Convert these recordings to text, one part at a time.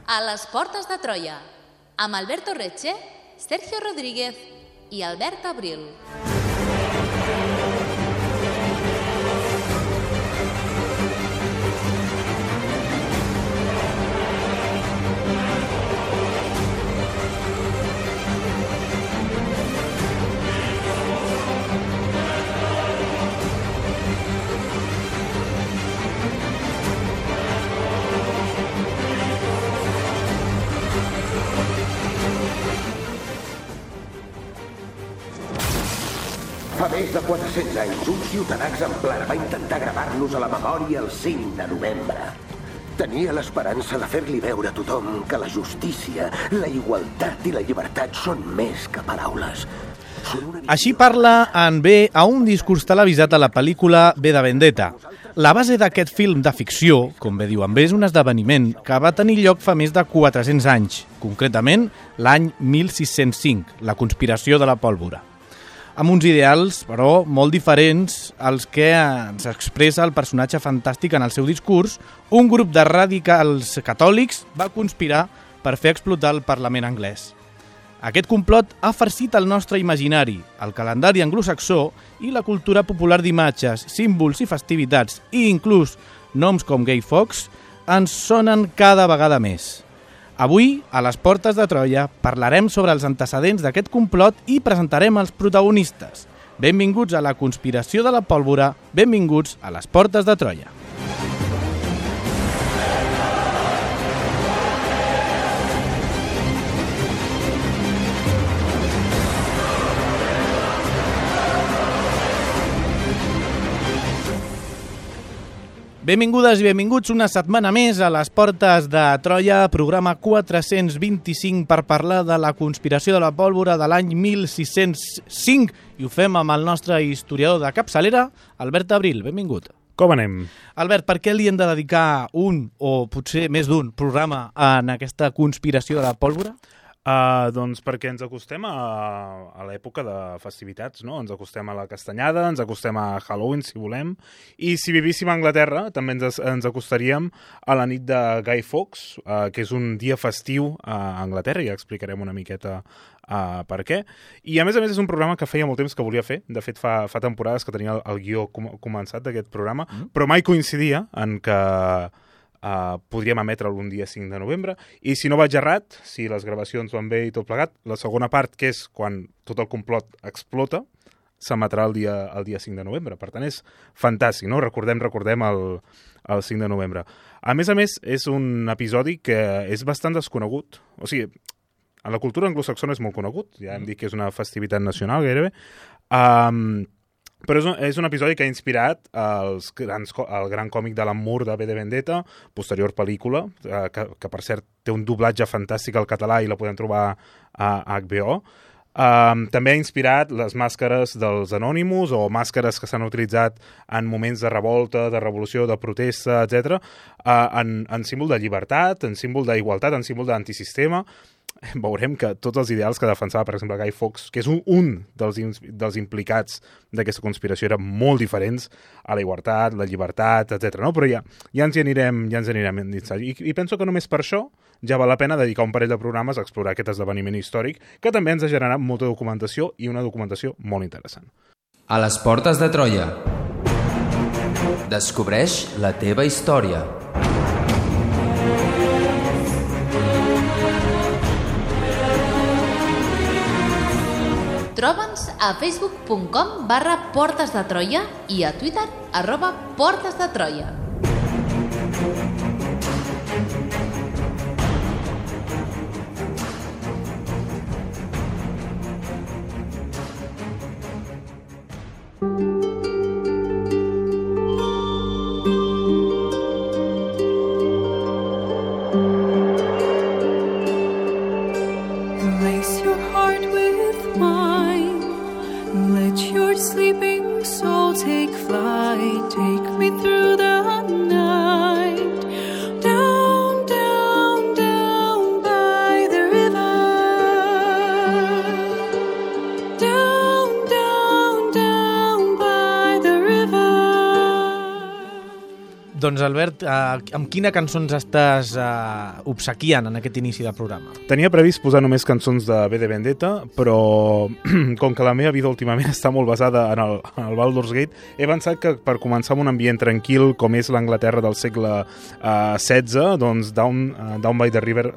A les portes de Troia, amb Alberto Reche, Sergio Rodríguez i Albert Abril. Fa més de 400 anys, un ciutadà exemplar va intentar gravar-nos a la memòria el 5 de novembre. Tenia l'esperança de fer-li veure a tothom que la justícia, la igualtat i la llibertat són més que paraules. Així parla en B a un discurs televisat a la pel·lícula V de Vendetta. La base d'aquest film de ficció, com bé diu en B, és un esdeveniment que va tenir lloc fa més de 400 anys, concretament l'any 1605, la conspiració de la pólvora. Amb uns ideals, però, molt diferents als que ens expressa el personatge fantàstic en el seu discurs, un grup de radicals catòlics va conspirar per fer explotar el Parlament anglès. Aquest complot ha farcit el nostre imaginari, el calendari anglosaxó i la cultura popular d'imatges, símbols i festivitats, i inclús noms com Guy Fawkes, ens sonen cada vegada més. Avui, a les portes de Troia, parlarem sobre els antecedents d'aquest complot i presentarem els protagonistes. Benvinguts a la conspiració de la pólvora, benvinguts a les portes de Troia. Benvingudes i benvinguts una setmana més a les portes de Troia, programa 425 per parlar de la conspiració de la pólvora de l'any 1605 i ho fem amb el nostre historiador de capçalera, Albert Abril. Benvingut. Com anem? Albert, per què li hem de dedicar un o potser més d'un programa en aquesta conspiració de la pólvora? Doncs perquè ens acostem a l'època de festivitats, no? Ens acostem a la castanyada, ens acostem a Halloween, si volem, i si vivíssim a Anglaterra també ens acostaríem a la nit de Guy Fawkes, que és un dia festiu a Anglaterra, i ja explicarem una miqueta per què. I a més és un programa que feia molt temps que volia fer, de fet fa temporades que tenia el guió començat d'aquest programa, però mai coincidia en que podríem emetre'l un dia 5 de novembre, i si no vaig errat, si les gravacions van bé i tot plegat, la segona part, que és quan tot el complot explota, s'emetrà el dia 5 de novembre. Per tant, és fantàstic, no? Recordem el 5 de novembre. A més, és un episodi que és bastant desconegut. O sigui, a la cultura anglosaxona és molt conegut, ja hem dit que és una festivitat nacional gairebé, però és un episodi que ha inspirat el gran còmic d'Alan Moore de V de Vendetta, posterior pel·lícula, que per cert té un doblatge fantàstic al català i la podem trobar a HBO. També ha inspirat les màscares dels Anonymous o màscares que s'han utilitzat en moments de revolta, de revolució, de protesta, etc., en símbol de llibertat, en símbol d'igualtat, en símbol d'antisistema. Veurem que tots els ideals que defensava, per exemple, Guy Fawkes, que és un dels implicats d'aquesta conspiració, eren molt diferents a la igualtat, la llibertat, etc. No? Però ja ens hi anirem I penso que només per això ja val la pena dedicar un parell de programes a explorar aquest esdeveniment històric, que també ens ha generat molta documentació i una documentació molt interessant. A les portes de Troia. Descobreix la teva història. Troba'ns a facebook.com/portesdetroia i a Twitter @portesdetroia. Lace your heart with mine. Let your sleeping soul take flight. Take me through the night. Doncs, Albert, amb quina cançó ens estàs obsequiant en aquest inici del programa? Tenia previst posar només cançons de V de Vendetta, però com que la meva vida últimament està molt basada en el Baldur's Gate, he pensat que per començar amb un ambient tranquil, com és l'Anglaterra del segle XVI, doncs Down by the River,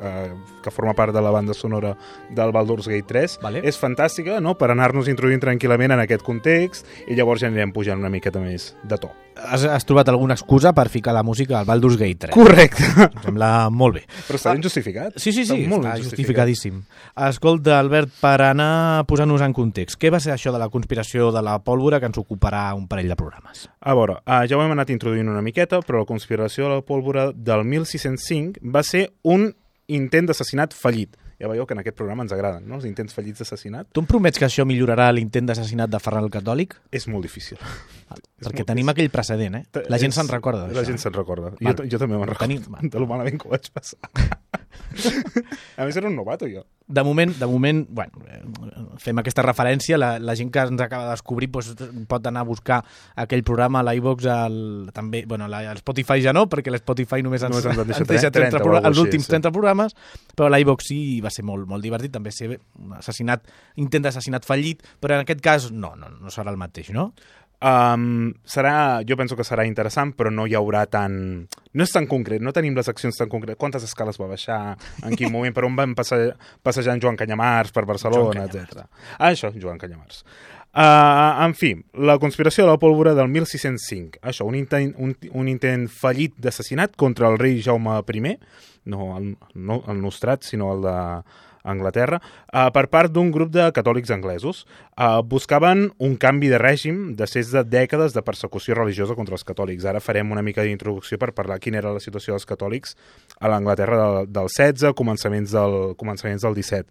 que forma part de la banda sonora del Baldur's Gate 3, Vale. és fantàstica, no?, per anar-nos introduint tranquil·lament en aquest context, i llavors ja anirem pujant una miqueta més de to. Has trobat alguna excusa per ficar la música al Baldur's Gate 3? Correcte. Em sembla molt bé. Però està ben justificat. Sí, Està molt està ben justificadíssim. Escolta, Albert, per anar posant-nos en context, què va ser això de la conspiració de la pólvora que ens ocuparà un parell de programes? A veure, ja ho hem anat introduint una miqueta, però la conspiració de la pólvora del 1605 va ser un intent d'assassinat fallit. Ja veieu que en aquest programa ens agraden, no?, els intents fallits d'assassinat. Tu em promets que això millorarà l'intent d'assassinat de Ferran el Catòlic? És molt difícil. Perquè tenim aquell precedent, eh? La gent se'n recorda d'això. La gent se'n recorda. Vale. Jo també me'n recordo Tenim- de lo malament que ho vaig passar. A més, era un novato, jo. De moment, bueno, fem aquesta referència, la gent que ens acaba de descobrir doncs, pot anar a buscar aquell programa a l'iVox, també, bueno, al Spotify ja no, perquè l'Spotify només ens deixa 30 els últims 30 programes, però a l'iVox sí, va ser molt, molt divertit, també ser un intent d'assassinat fallit, però en aquest cas no serà el mateix, no? Jo penso que serà interessant, però no hi haurà no és tan concret, no tenim les accions tan concretes. Quantes escales va baixar, en quin moment, per on van passejant Joan Canyamars per Barcelona, etc. Això, Joan Canyamars. En fi, la conspiració de la pólvora del 1605. Això, un intent fallit d'assassinat contra el rei Jaume I, no el nostrat, sinó el d'Anglaterra, per part d'un grup de catòlics anglesos. Buscaven un canvi de règim després de dècades de persecució religiosa contra els catòlics. Ara farem una mica d'introducció per parlar quina era la situació dels catòlics a l'Anglaterra del 16, començaments del 17.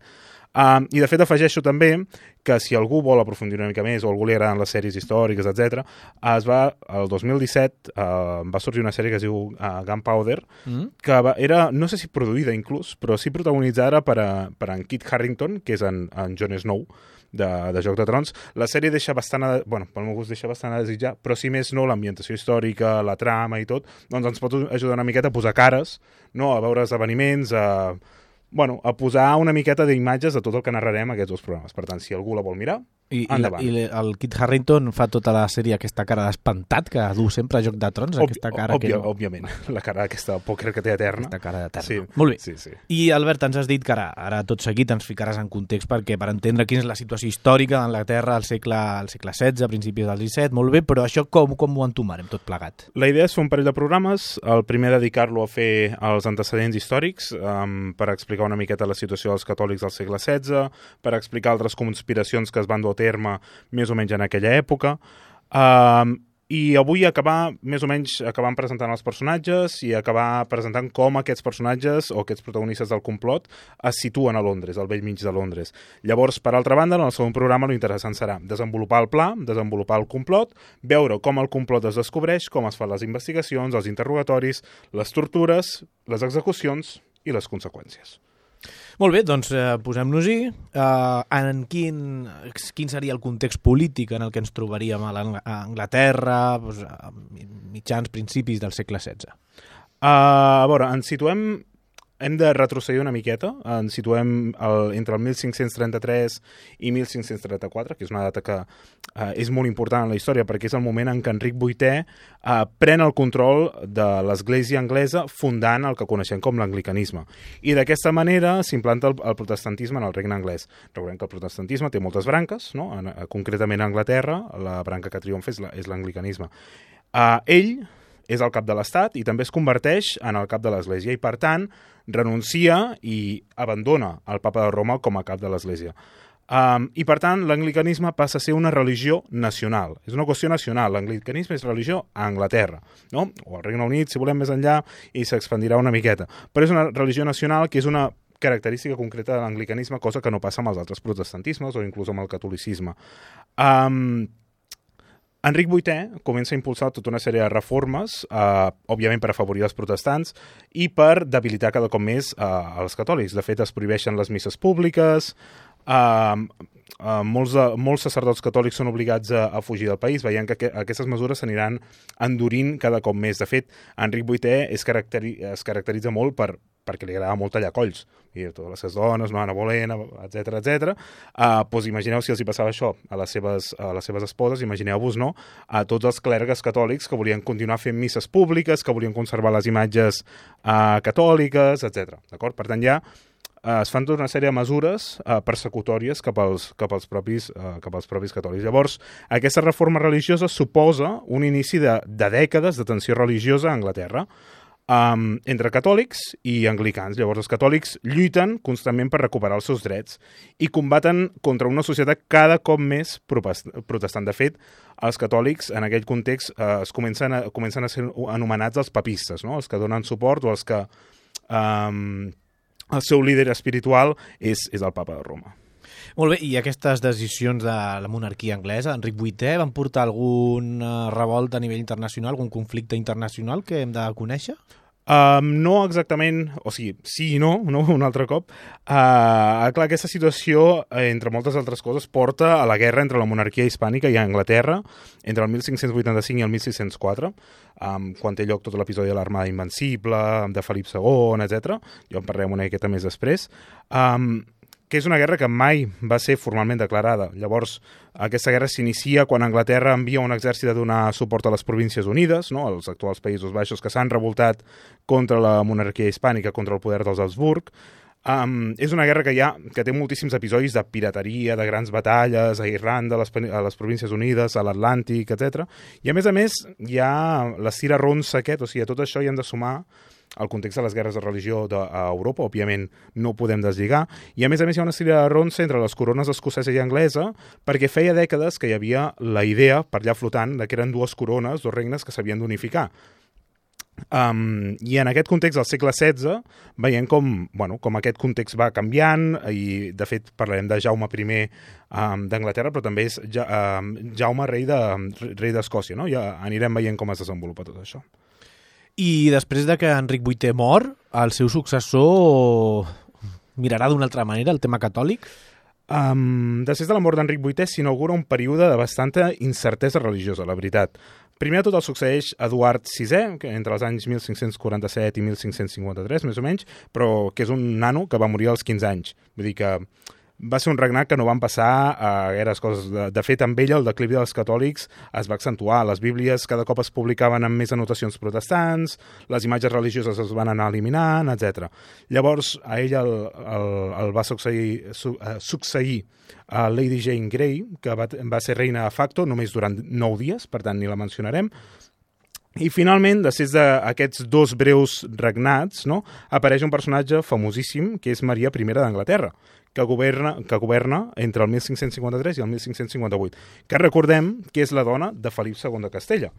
I de fet afegeixo també que si algú vol aprofundir una mica més o algú li agraden les sèries històriques, etc., el 2017 va sorgir una sèrie que es diu Gunpowder, que era, no sé si produïda inclús, però sí protagonitzada per en Kit Harington, que és en Jon Snow, de Joc de Trons. La sèrie deixa bastant, pel meu gust deixa bastant a desitjar, però si més no, l'ambientació històrica, la trama i tot, doncs ens pot ajudar una miqueta a posar cares, no? A veure esdeveniments, a posar una miqueta d'imatges de tot el que narrarem aquests dos programes. Per tant, si algú la vol mirar, endavant. I el Kit Harington fa tota la sèrie aquesta cara d'espantat que du sempre a Joc de Trons, aquesta cara òbviament, la cara aquesta pòquer que té eterna. Aquesta cara d'eterna. Sí. Molt bé. Sí. I, Albert, ens has dit que ara tot seguit ens ficaràs en context perquè per entendre quina és la situació històrica d'Anglaterra al segle XVI, a principis del XVII, molt bé, però això com ho entomarem tot plegat? La idea és fer un parell de programes, el primer dedicar-lo a fer els antecedents històrics, per explicar una miqueta la situació dels catòlics del segle XVI, per explicar altres conspiracions que es van dur a terme més o menys en aquella època, i avui acabar presentant els personatges i acabar presentant com aquests personatges o aquests protagonistes del complot es situen a Londres, al vell mig de Londres. Llavors, per altra banda, en el segon programa l'interessant serà desenvolupar el pla, desenvolupar el complot, veure com el complot es descobreix, com es fan les investigacions, els interrogatoris, les tortures, les execucions i les conseqüències. Molt bé, doncs posem-nos-hi. Quin seria el context polític en el que ens trobaríem a Anglaterra, a mitjans, principis del segle XVI? A veure, ens situem... Hem de retrocedir una miqueta, ens situem entre el 1533 i 1534, que és una data que és molt important en la història perquè és el moment en què Enric VIII pren el control de l'església anglesa fundant el que coneixem com l'anglicanisme. I d'aquesta manera s'implanta el protestantisme en el regne anglès. Recordem que el protestantisme té moltes branques, no? Concretament a Anglaterra, la branca que triomfa és l'anglicanisme. Ell és el cap de l'Estat i també es converteix en el cap de l'Església i, per tant, renuncia i abandona el papa de Roma com a cap de l'Església. I, per tant, l'anglicanisme passa a ser una religió nacional. És una qüestió nacional. L'anglicanisme és religió a Anglaterra, no? O al Regne Unit, si volem més enllà, i s'expandirà una miqueta. Però és una religió nacional que és una característica concreta de l'anglicanisme, cosa que no passa amb els altres protestantismes o inclús amb el catolicisme. Enric VIII comença a impulsar tota una sèrie de reformes, òbviament per afavorir els protestants i per debilitar cada cop més els catòlics. De fet, es prohibeixen les misses públiques, molts sacerdots catòlics són obligats a fugir del país, veient que aquestes mesures s'aniran endurint cada cop més. De fet, Enric VIII es caracteritza molt perquè li agrada molt tallar colls. I totes les seves dones, no Anna Bolena, etc. Doncs imagineu si els hi passava això a les seves esposes, imagineu-vos, no?, a tots els clergues catòlics que volien continuar fent misses públiques, que volien conservar les imatges catòliques, etc. D'acord? Per tant, ja es fan tota una sèrie de mesures persecutòries cap als propis catòlics. Llavors, aquesta reforma religiosa suposa un inici de dècades de tensió religiosa a Anglaterra entre catòlics i anglicans. Llavors, els catòlics lluiten constantment per recuperar els seus drets i combaten contra una societat cada cop més protestant. De fet, els catòlics, en aquell context, comencen a ser anomenats els papistes, no?, els que donen suport o els que el seu líder espiritual és el papa de Roma. Molt bé, i aquestes decisions de la monarquia anglesa, Enric VIII, van portar algun revolta a nivell internacional, algun conflicte internacional que hem de conèixer? No exactament, o sigui, sí i no, un altre cop. Clar, aquesta situació, entre moltes altres coses, porta a la guerra entre la monarquia hispànica i Anglaterra entre el 1585 i el 1604, quan té lloc tot l'episodi de l'Armada Invencible, de Felip II, etc. Jo en parlarem una miqueta més després. Que és una guerra que mai va ser formalment declarada. Llavors, aquesta guerra s'inicia quan Anglaterra envia un exèrcit a donar suport a les Províncies Unides, no?, als actuals Països Baixos, que s'han revoltat contra la monarquia hispànica, contra el poder dels Habsburg. És una guerra que té moltíssims episodis de pirateria, de grans batalles a Irlanda, a les Províncies Unides, a l'Atlàntic, etc. I a més, hi ha l'Estira Ronsa aquest, o sigui, a tot això hi hem de sumar el context de les guerres de religió a Europa, òbviament no ho podem deslligar, i a més hi ha una estira ronsa entre les corones escocesa i anglesa, perquè feia dècades que hi havia la idea, per allà flotant, que eren dues corones, dos regnes que s'havien d'unificar. I en aquest context del segle XVI veiem com aquest context va canviant, i de fet parlarem de Jaume I d'Anglaterra, però també és Jaume rei d'Escòcia, no? Ja anirem veient com es desenvolupa tot això. I després de que Enric VIII mor, el seu successor mirarà d'una altra manera el tema catòlic? Després de la mort d'Enric VIII s'inaugura un període de bastanta incertesa religiosa, la veritat. Primer de tot el succeeix Eduard VI, que entre els anys 1547 i 1553, més o menys, però que és un nano que va morir als 15 anys. Vull dir que va ser un regnat que no van passar a gaires coses. De fet, amb ell el declivi dels catòlics es va accentuar. Les bíblies cada cop es publicaven amb més anotacions protestants, les imatges religioses es van anar eliminant, etc. Llavors, a ell el va succeir a Lady Jane Grey, que va ser reina de facto només durant 9 dies, per tant ni la mencionarem. I finalment, després d'aquests dos breus regnats, no, apareix un personatge famosíssim, que és Maria I d'Anglaterra, que governa entre el 1553 i el 1558, que recordem que és la dona de Felip II de Castella.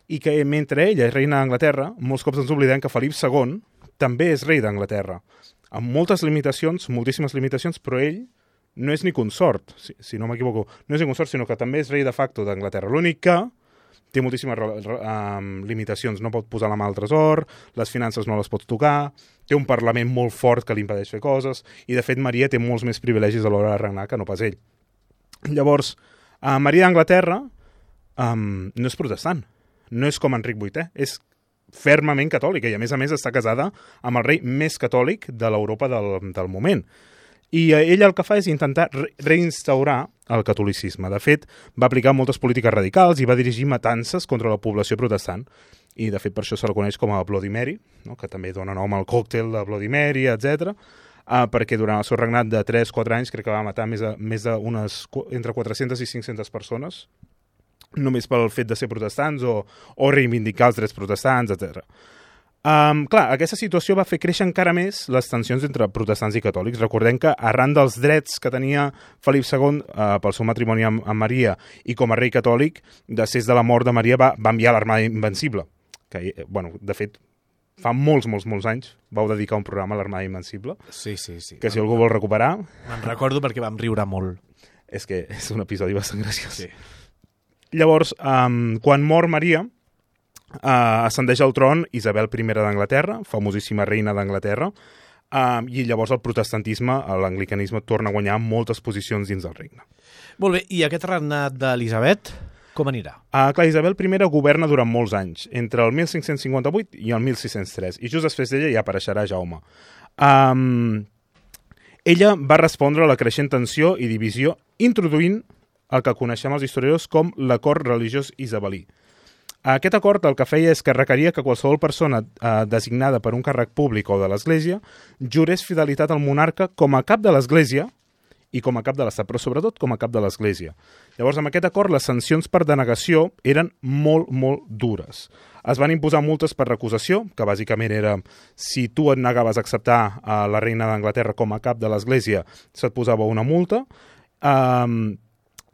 I que mentre ella és reina d'Anglaterra, molts cops ens oblidem que Felip II també és rei d'Anglaterra, amb moltes limitacions, moltíssimes limitacions, però ell no és ni consort, si no m'equivoco, no és ni consort, sinó que també és rei de facto d'Anglaterra. L'únic que té moltíssimes limitacions, no pot posar la mà al tresor, les finances no les pot tocar, té un parlament molt fort que li impedeix fer coses, i de fet Maria té molts més privilegis a l'hora de regnar que no pas ell. Llavors, Maria d'Anglaterra no és protestant, no és com Enric VIII, és fermament catòlica, i a més està casada amb el rei més catòlic de l'Europa del moment. I ell el que fa és intentar reinstaurar el catolicisme. De fet, va aplicar moltes polítiques radicals i va dirigir matances contra la població protestant. I, de fet, per això se la coneix com a Bloody Mary, no? Que també dona nom al còctel de Bloody Mary, etc. Perquè durant el seu regnat de 3-4 anys crec que va matar entre 400 i 500 persones, només pel fet de ser protestants o reivindicar els drets protestants, etc. Clar, aquesta situació va fer créixer encara més les tensions entre protestants i catòlics. Recordem que arran dels drets que tenia Felip II pel seu matrimoni amb Maria i com a rei catòlic, després de la mort de Maria va enviar l'Armada Invencible, que, de fet, fa molts anys vau dedicar un programa a l'Armada Invencible. Sí. Que si algú vol recuperar... Me'n recordo perquè vam riure molt. És que és un episodi bastant graciós. Sí. Llavors, quan mor Maria, ascendeix al tron Isabel I d'Anglaterra, famosíssima reina d'Anglaterra, I llavors el protestantisme, l'anglicanisme, torna a guanyar moltes posicions dins del regne. Molt bé, i aquest regnat d'Elisabet, com anirà? Clar, Isabel I governa durant molts anys, entre el 1558 i el 1603, i just després d'ella ja apareixerà Jaume. Ella va respondre a la creixent tensió i divisió introduint el que coneixem els historiadors com l'acord religiós isabelí. Aquest acord el que feia és que requeria que qualsevol persona designada per un càrrec públic o de l'Església jurés fidelitat al monarca com a cap de l'Església i com a cap de l'Estat, però sobretot com a cap de l'Església. Llavors, amb aquest acord, les sancions per denegació eren molt, molt dures. Es van imposar multes per recusació, que bàsicament era si tu et negaves a acceptar la reina d'Anglaterra com a cap de l'Església, se't posava una multa,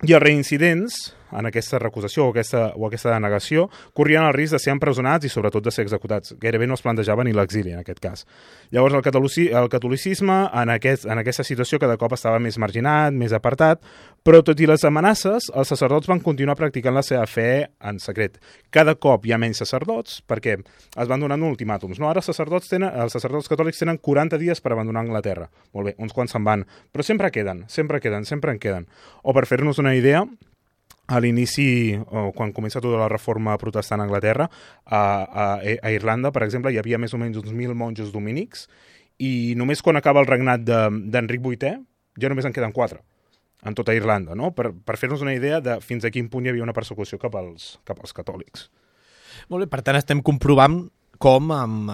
i els reincidents en aquesta recusació o aquesta denegació corrien el risc de ser empresonats i sobretot de ser executats. Gairebé no es plantejava ni l'exili en aquest cas. Llavors el catolicisme en aquesta situació cada cop estava més marginat, més apartat, però tot i les amenaces, els sacerdots van continuar practicant la seva fe en secret. Cada cop hi ha menys sacerdots perquè es van donant ultimàtums. No? Ara els sacerdots catòlics tenen 40 dies per abandonar Anglaterra. Molt bé, uns quants se'n van, però sempre en queden. O per fer-nos una idea, a l'inici, quan comença tota la reforma protestant a Anglaterra, a Irlanda, per exemple, hi havia més o menys uns 1.000 monjos dominics i només quan acaba el regnat d'Enric VIII ja només en queden 4 en tota Irlanda, no? Per fer-nos una idea de fins a quin punt hi havia una persecució cap als catòlics. Molt bé, per tant estem comprovant com amb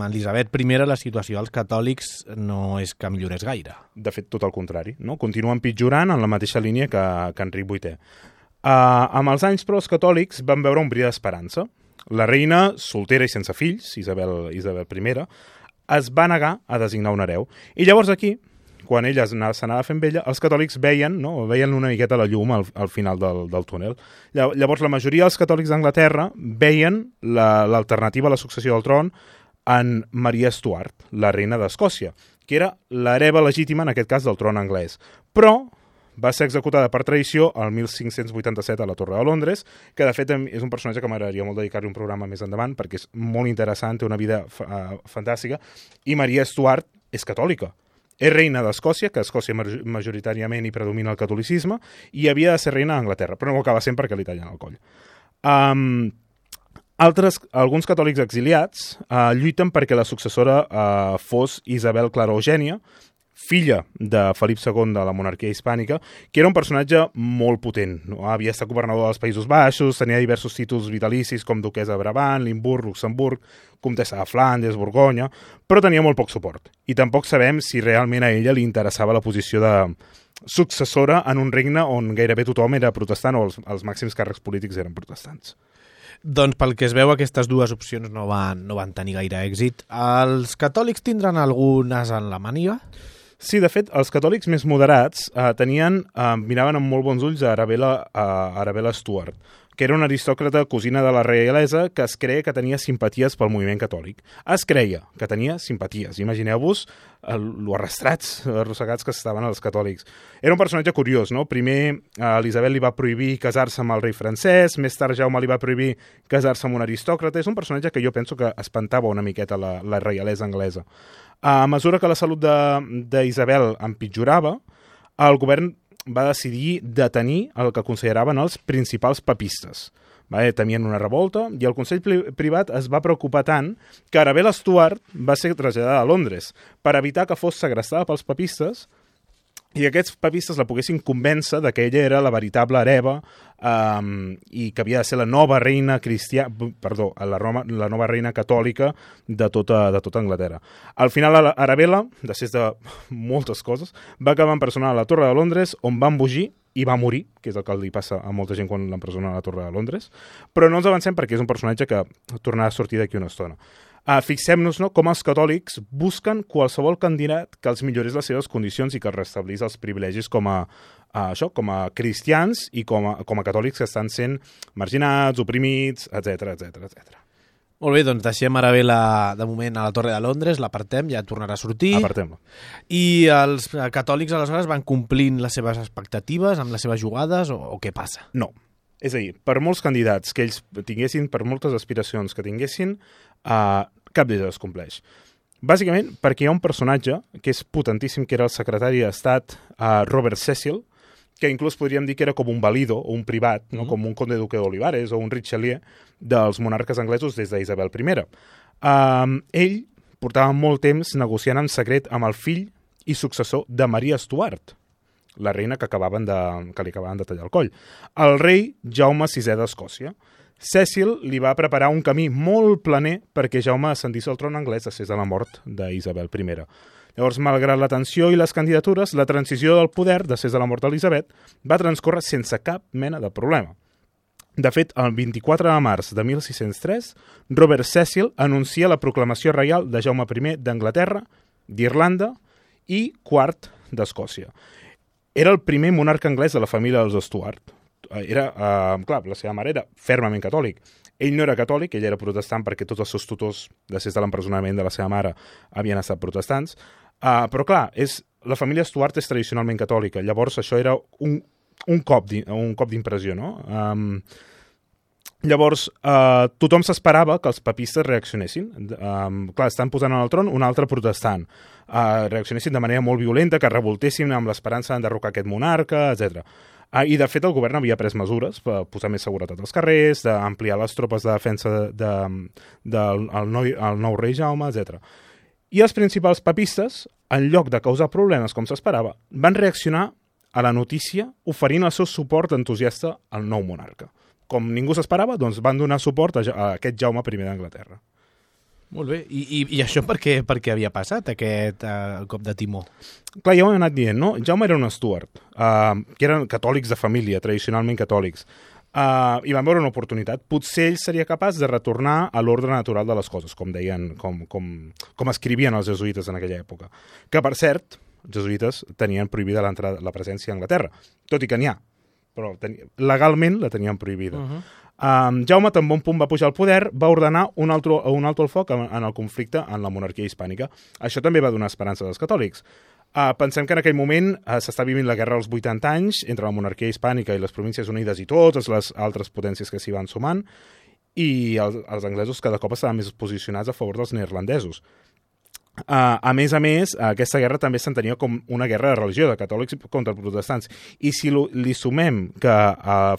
Elisabet I la situació dels catòlics no és que millorés gaire. De fet, tot el contrari, no? Continua empitjorant en la mateixa línia que Enric VIII. Amb els anys, però, els catòlics van veure un bri d'esperança. La reina, soltera i sense fills, Isabel I, es va negar a designar un hereu. I llavors aquí, quan ella s'anava fent vella, els catòlics veien una miqueta la llum al final del túnel. Llavors la majoria dels catòlics d'Anglaterra veien l'alternativa a la successió del tron en Maria Stuart, la reina d'Escòcia, que era l'hereva legítima, en aquest cas, del tron anglès. Però va ser executada per traïció el 1587 a la Torre de Londres, que de fet és un personatge que m'agradaria molt dedicar-li un programa més endavant, perquè és molt interessant, té una vida fantàstica, i Maria Stuart és catòlica. És reina d'Escòcia, que a Escòcia majoritàriament hi predomina el catolicisme, i havia de ser reina d'Anglaterra, però no ho acaba sent perquè li tallen el coll. Alguns catòlics exiliats lluiten perquè la successora fos Isabel Clara Eugènia, filla de Felip II de la monarquia hispànica, que era un personatge molt potent. Havia estat governador dels Països Baixos, tenia diversos títols vitalicis com duquesa de Brabant, Limburg, Luxemburg, comtessa de Flandes, Borgonya, però tenia molt poc suport. I tampoc sabem si realment a ella li interessava la posició de successora en un regne on gairebé tothom era protestant o els màxims càrrecs polítics eren protestants. Doncs pel que es veu, aquestes dues opcions no van tenir gaire èxit. Els catòlics tindran algunes en la màniga? Sí, de fet, els catòlics més moderats miraven amb molt bons ulls a Arabella Stuart, que era una aristòcrata cosina de la reialesa que es creia que tenia simpaties pel moviment catòlic. Es creia que tenia simpaties. Imagineu-vos lo arrossegats que estaven els catòlics. Era un personatge curiós, no? Primer Elisabet li va prohibir casar-se amb el rei francès, més tard Jaume li va prohibir casar-se amb un aristòcrata. És un personatge que jo penso que espantava una miqueta la reialesa anglesa. A mesura que la salut d'Isabel empitjorava, el govern va decidir detenir el que consideraven els principals papistes. Temien una revolta i el Consell Privat es va preocupar tant que Arabella Stuart va ser traslladada a Londres per evitar que fos segrestada pels papistes i aquests papistes la poguessin convèncer de que ella era la veritable hereva i que havia de ser la nova reina la nova reina catòlica de tota Anglaterra. Al final, Arabella, després de moltes coses, va acabar empresonada a la Torre de Londres, on va embogir i va morir, que és el que li passa a molta gent quan l'empresona a la Torre de Londres, però no ens avancem perquè és un personatge que tornarà a sortir d'aquí una estona. Fixem-nos com els catòlics busquen qualsevol candidat que els millorés les seves condicions i que els restablís els privilegis com a cristians i com a catòlics que estan sent marginats, oprimits, etc. Molt bé, doncs deixem Arabella de moment a la Torre de Londres, l'apartem, ja tornarà a sortir. Apartem-la. I els catòlics aleshores van complint les seves expectatives amb les seves jugades o què passa? No. És a dir, per molts candidats que ells tinguessin, per moltes aspiracions que tinguessin, cap d'ells es compleix. Bàsicament perquè hi ha un personatge que és potentíssim, que era el secretari d'Estat Robert Cecil, que inclús podríem dir que era com un valido o un privat, no? Com un conde duque d'Olivares o un Richelieu dels monarques anglesos des d'Isabel I. Ell portava molt temps negociant en secret amb el fill i successor de Maria Stuart, la reina que li acabaven de tallar el coll, el rei Jaume VI d'Escòcia. Cecil li va preparar un camí molt planer perquè Jaume ascendís al tron anglès després de la mort d'Isabel I. Llavors, malgrat la tensió i les candidatures, la transició del poder, després de la mort d'Elisabet, va transcórrer sense cap mena de problema. De fet, el 24 de març de 1603, Robert Cecil anuncia la proclamació reial de Jaume I d'Anglaterra, d'Irlanda i quart d'Escòcia. Era el primer monarca anglès de la família dels Stuart. Clar, la seva mare era fermament catòlic. Ell no era catòlic, ell era protestant perquè tots els seus tutors, després de l'empresonament de la seva mare, havien estat protestants. Però clar, la família Stuart és tradicionalment catòlica, llavors això era un cop d'impressió, no? Llavors, tothom s'esperava que els papistes reaccionessin. Clar, estan posant en el tron un altre protestant. Reaccionessin de manera molt violenta, que revoltessin amb l'esperança d'enderrocar aquest monarca, etc. I, de fet, el govern havia pres mesures per posar més seguretat als carrers, d'ampliar les tropes de defensa del nou rei Jaume, etc. I els principals papistes, en lloc de causar problemes com s'esperava, van reaccionar a la notícia oferint el seu suport entusiasta al nou monarca. Com ningú s'esperava, doncs van donar suport a aquest Jaume I d'Anglaterra. Molt bé. I això per què havia passat, aquest cop de timó? Clar, ja ho hem anat dient, no? Jaume era un Stuart, que eren catòlics de família, tradicionalment catòlics, i van veure una oportunitat. Potser ell seria capaç de retornar a l'ordre natural de les coses, com deien, com escrivien els jesuïtes en aquella època. Que, per cert, els jesuïtes tenien prohibida la presència a Anglaterra, tot i que n'hi ha, però legalment la tenien prohibida. Jaume, tan bon punt va pujar al poder, va ordenar un alto al foc en el conflicte en la monarquia hispànica. Això també va donar esperança als catòlics. Pensem que en aquell moment s'està vivint la guerra als 80 anys entre la monarquia hispànica i les províncies unides i totes les altres potències que s'hi van sumant, i els anglesos cada cop estaven més posicionats a favor dels neerlandesos. A més, aquesta guerra també s'entenia com una guerra de religió, de catòlics contra protestants. I si li sumem que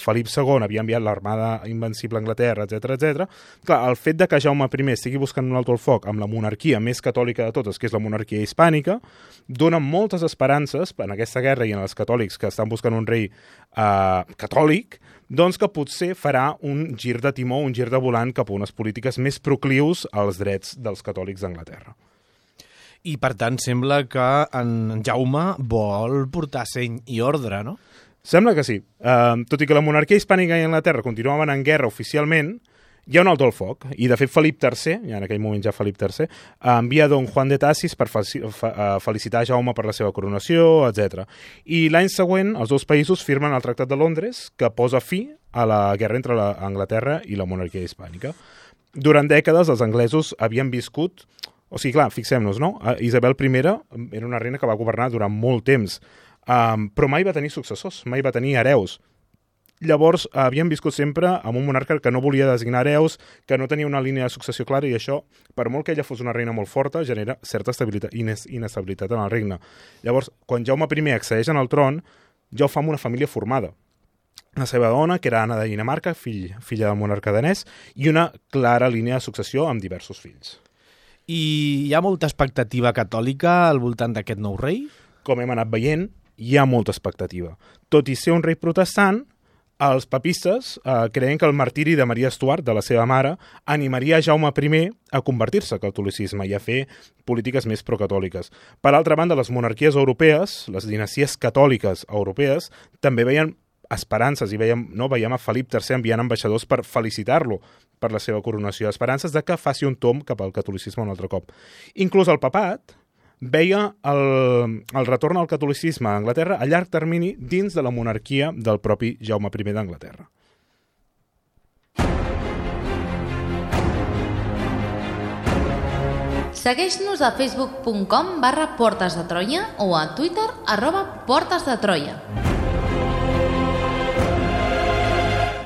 Felip II havia enviat l'armada invencible a Anglaterra, etc., clar, el fet de que Jaume I estigui buscant un alto al foc amb la monarquia més catòlica de totes, que és la monarquia hispànica, dona moltes esperances en aquesta guerra i en els catòlics que estan buscant un rei catòlic, doncs que potser farà un gir de timó, un gir de volant cap a unes polítiques més proclius als drets dels catòlics d'Anglaterra. I, per tant, sembla que en Jaume vol portar seny i ordre, no? Sembla que sí. Tot i que la monarquia hispànica i Anglaterra continuaven en guerra oficialment, hi ha un alto al foc. I, de fet, Felip III, ja en aquell moment ja Felip III, envia don Juan de Tassis per felicitar Jaume per la seva coronació, etc. I l'any següent, els dos països firmen el Tractat de Londres, que posa fi a la guerra entre Anglaterra i la monarquia hispànica. Durant dècades, els anglesos havien viscut... O sigui, clar, fixem-nos, no? Isabel I era una reina que va governar durant molt temps, però mai va tenir successors, mai va tenir hereus. Llavors, havien viscut sempre amb un monarca que no volia designar hereus, que no tenia una línia de successió clara, i això, per molt que ella fos una reina molt forta, genera certa inestabilitat en el regne. Llavors, quan Jaume I accedeix al tron, ja ho fa amb una família formada. La seva dona, que era Anna de Dinamarca, filla del monarca danès, i una clara línia de successió amb diversos fills. I hi ha molta expectativa catòlica al voltant d'aquest nou rei? Com hem anat veient, hi ha molta expectativa. Tot i ser un rei protestant, els papistes creien que el martiri de Maria Stuart, de la seva mare, animaria Jaume I a convertir-se al catolicisme i a fer polítiques més procatòliques. Per altra banda, les monarquies europees, les dinasties catòliques europees, també veien esperances i veiem a Felip III enviant ambaixadors per felicitar-lo per la seva coronació, esperances de que faci un tomb cap al catolicisme un altre cop. Inclús el papat veia el retorn al catolicisme a Anglaterra a llarg termini dins de la monarquia del propi Jaume I d'Anglaterra. Segueix-nos a facebook.com/Portes de Troia o a Twitter @PortesDeTroia.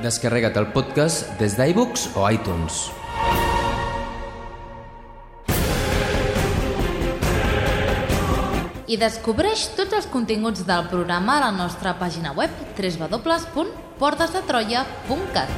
Descarrega't el podcast des d'iVoox o iTunes. I descobreix tots els continguts del programa a la nostra pàgina web www.portasdetroia.cat.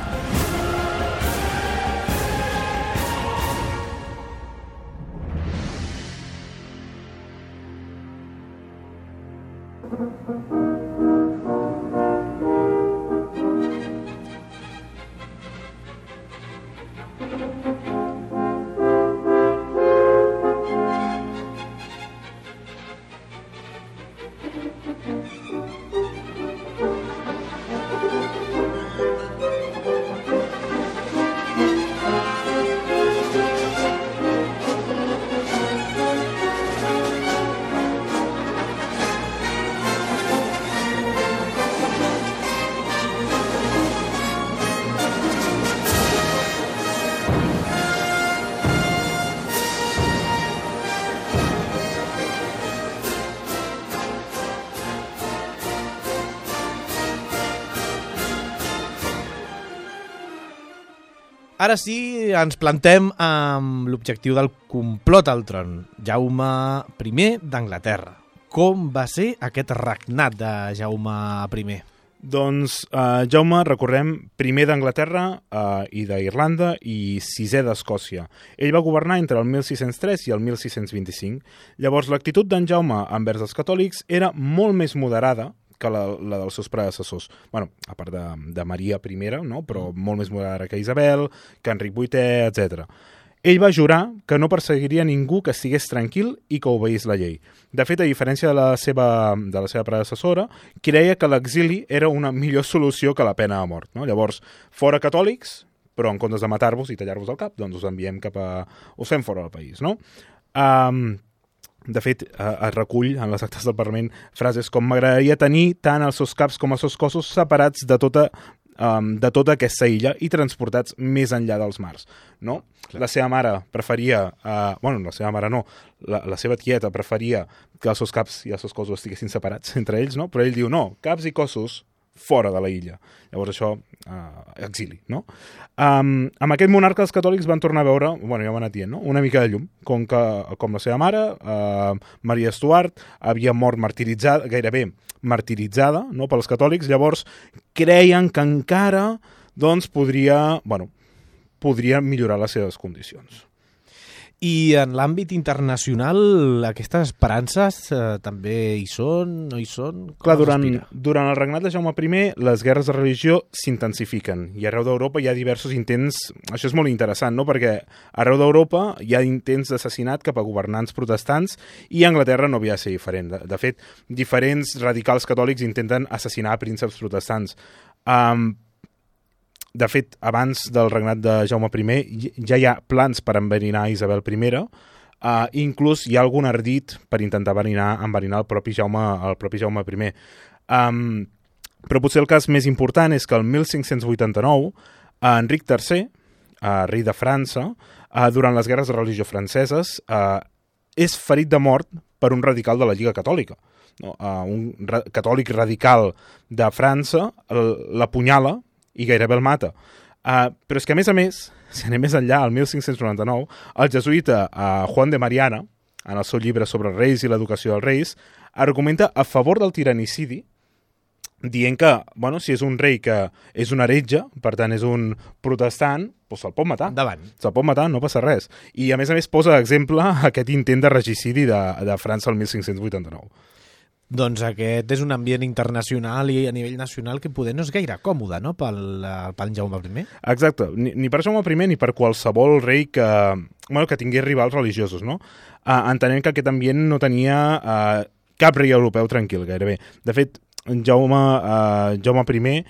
Ara sí, ens plantem amb l'objectiu del complot al tron. Jaume I d'Anglaterra. Com va ser aquest regnat de Jaume I? Doncs Jaume, recordem, primer d'Anglaterra i d'Irlanda i sisè d'Escòcia. Ell va governar entre el 1603 i el 1625. Llavors, l'actitud d'en Jaume envers els catòlics era molt més moderada que la dels seus predecessors. Bueno, a part de Maria I, no? Però molt més moderada que Isabel, que Enric VIII, etc. Ell va jurar que no perseguiria ningú que estigués tranquil i que obeís la llei. De fet, a diferència de la seva predecessora, creia que l'exili era una millor solució que la pena de mort. No? Llavors, fora catòlics, però en comptes de matar-vos i tallar-vos el cap, doncs us enviem us fem fora del país, no? De fet, es recull en les actes del Parlament frases com «M'agradaria tenir tant els seus caps com els seus cossos separats de tota aquesta illa i transportats més enllà dels mars». No? La seva mare preferia... la seva mare no, la seva tieta preferia que els seus caps i els seus cossos estiguessin separats entre ells, no? Però ell diu no, caps i cossos fora de la illa. Llavors això, exili, no? Amb aquest monarca els catòlics van tornar a veure, ja ho han anat dient, no? Una mica de llum, com la seva mare, Maria Stuart, havia mort gairebé martiritzada, no? Pels catòlics, llavors creien que encara doncs, podria millorar les seves condicions. I en l'àmbit internacional, aquestes esperances també hi són, no hi són? Clar, durant el regnat de Jaume I, les guerres de religió s'intensifiquen i arreu d'Europa hi ha diversos intents, això és molt interessant, no? Perquè arreu d'Europa hi ha intents d'assassinat cap a governants protestants i a Anglaterra no havia de ser diferent. De fet, diferents radicals catòlics intenten assassinar prínceps protestants. De fet, abans del regnat de Jaume I ja hi ha plans per enverinar Isabel I, inclús hi ha algun ardit per intentar enverinar el propi Jaume I. Però potser el cas més important és que el 1589 Enric III, rei de França, durant les guerres de religió franceses, és ferit de mort per un radical de la Lliga Catòlica. Un catòlic radical de França l'apunyala i gairebé el mata. Però és que, a més, si anem més enllà, el 1599, el jesuïta Juan de Mariana, en el seu llibre sobre els reis i l'educació dels reis, argumenta a favor del tiranicidi, dient que, si és un rei que és un heretge, per tant és un protestant, doncs se'l pot matar. Endavant. Se'l pot matar, no passa res. I, a més, posa exemple aquest intent de regicidi de França el 1589. Doncs aquest és un ambient internacional i a nivell nacional que poder no és gaire còmode, no?, pel Jaume I. Exacte, ni per Jaume I ni per qualsevol rei que tingués rivals religiosos, no? Entenent que aquest ambient no tenia cap rei europeu tranquil, gairebé. De fet, Jaume I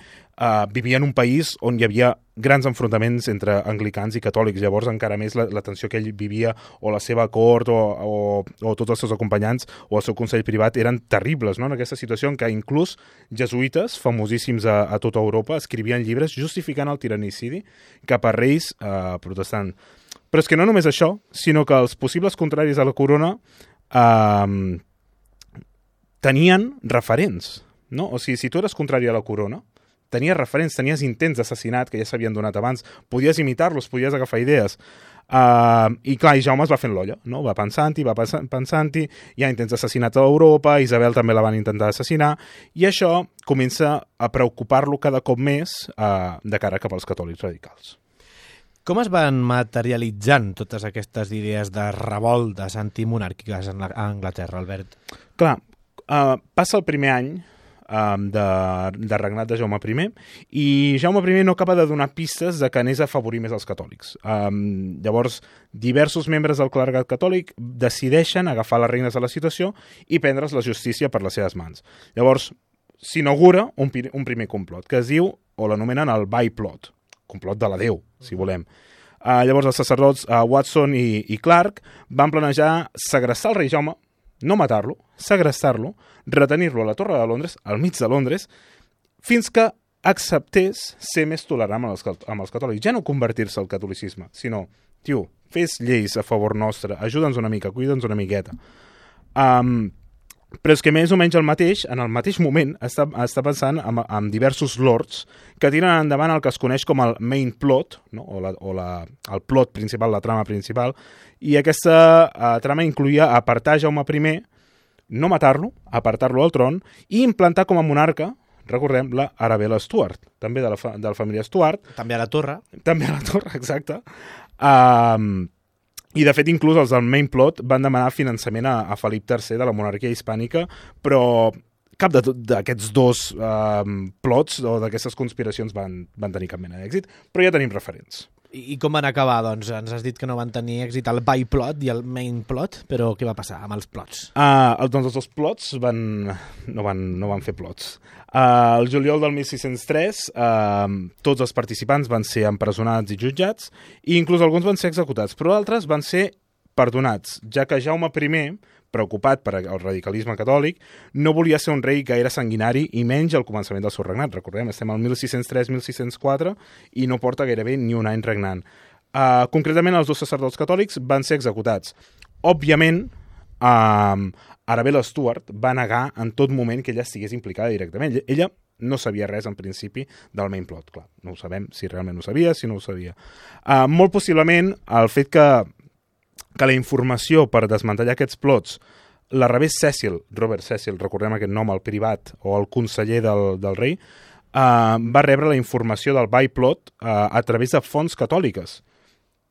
vivia en un país on hi havia grans enfrontaments entre anglicans i catòlics, llavors encara més la tensió que ell vivia o la seva cort o tots els seus acompanyants o el seu consell privat eren terribles, no? En aquesta situació en què inclús jesuïtes famosíssims a tota Europa escrivien llibres justificant el tiranicidi cap a reis protestants. Però és que no només això, sinó que els possibles contraris a la corona tenien referents, no? O sigui, si tu eres contrari a la corona, tenies referents, tenies intents d'assassinat que ja s'havien donat abans, podies imitar-los, podies agafar idees. I clar, i Jaume es va fent l'olla, no? Va pensant-hi, hi ha intents assassinats a Europa, Isabel també la van intentar assassinar, i això comença a preocupar-lo cada cop més de cara cap als catòlics radicals. Com es van materialitzant totes aquestes idees de revoltes antimonàrquiques a Anglaterra, Albert? Clar, passa el primer any de regnat de Jaume I i Jaume I no acaba de donar pistes de que anés a afavorir més els catòlics. Llavors, diversos membres del clergat catòlic decideixen agafar les regnes de la situació i prendre's la justícia per les seves mans. Llavors, s'inaugura un primer complot, que es diu, o l'anomenen el Byplot, complot de la Déu, si volem. Llavors els sacerdots Watson i Clark van planejar segrestar el rei Jaume, no matar-lo, segrestar-lo, retenir-lo a la Torre de Londres, al mig de Londres, fins que acceptés ser més tolerant amb els catòlics. Ja no convertir-se al catolicisme, sinó, tio, fes lleis a favor nostre, ajuda'ns una mica, cuida'ns una miqueta. Però és que més o menys en el mateix moment està pensant en diversos lords que tiren endavant el que es coneix com el main plot, no? El plot principal, la trama principal, i aquesta trama incluïa apartar Jaume I, no matar-lo, apartar-lo al tron i implantar com a monarca, recordem, la Arabella Stuart, també de la família Stuart. També a la torre. També a la torre, exacte. I, de fet, inclús els del main plot van demanar finançament a Felip III de la monarquia hispànica, però cap d'aquests dos plots o d'aquestes conspiracions van tenir cap mena d'èxit, però ja tenim referents. I com van acabar, doncs? Ens has dit que no van tenir èxit el byplot i el main plot, però què va passar amb els plots? Doncs els dos plots no van fer plots. El juliol del 1603 tots els participants van ser empresonats i jutjats i inclús alguns van ser executats, però altres van ser perdonats, ja que Jaume I, preocupat per el radicalisme catòlic, no volia ser un rei gaire sanguinari i menys al començament del seu regnat. Recordem, estem al 1603-1604 i no porta gairebé ni un any regnant. Concretament, els dos sacerdots catòlics van ser executats. Òbviament, Arabella Stuart va negar en tot moment que ella estigués implicada directament. Ella no sabia res, en principi, del main plot. Clar, no ho sabem si realment ho sabia, si no ho sabia. Molt possiblement, el fet que la informació per desmantellar aquests plots la rebés Robert Cecil, recordem aquest nom, el privat o el conseller del rei, va rebre la informació del byplot a través de fonts catòliques.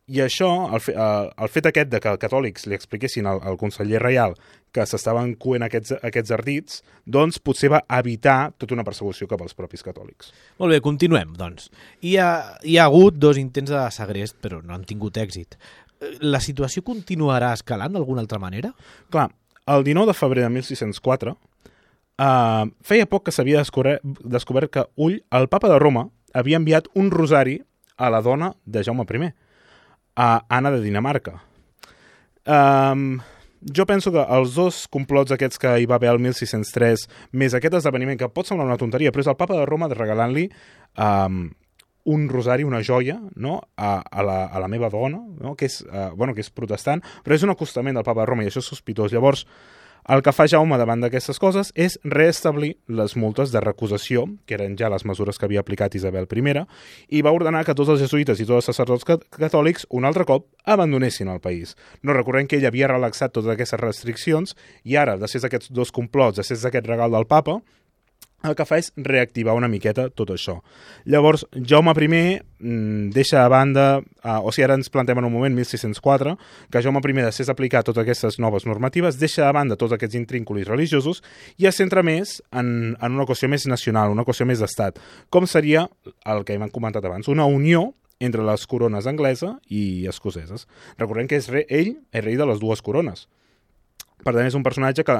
I això, el fet aquest de que els catòlics li expliquessin al conseller reial que s'estaven coent aquests ardits, doncs potser va evitar tota una persecució cap als propis catòlics. Molt bé, continuem, doncs. Hi ha hagut 2 intents de segrest, però no han tingut èxit. La situació continuarà escalant d'alguna altra manera? Clar, el 19 de febrer de 1604 feia poc que s'havia descobert que el papa de Roma, havia enviat un rosari a la dona de Jaume I, a Anna de Dinamarca. Jo penso que els dos complots aquests que hi va haver el 1603, més aquest esdeveniment, que pot semblar una tonteria, però és el papa de Roma regalant-li un rosari, una joia, no? a la meva dona, no? que és protestant, però és un acostament del papa de Roma i això és sospitós. Llavors, el que fa Jaume davant d'aquestes coses és reestablir les multes de recusació, que eren ja les mesures que havia aplicat Isabel I, i va ordenar que tots els jesuïtes i tots els sacerdots catòlics un altre cop abandonessin el país. No recordem que ell havia relaxat totes aquestes restriccions i ara, després d'aquests dos complots, després d'aquest regal del papa, el que fa és reactivar una miqueta tot això. Llavors, Jaume I deixa a banda, ara ens plantem en un moment, 1604, que Jaume I, després d'aplicar totes aquestes noves normatives, deixa a banda tots aquests intrínculis religiosos i es centra més en una qüestió més nacional, una qüestió més d'estat, com seria el que hem comentat abans, una unió entre les corones anglesa i escoceses. Recordem que ell és rei de les dues corones. Per tant, és un personatge que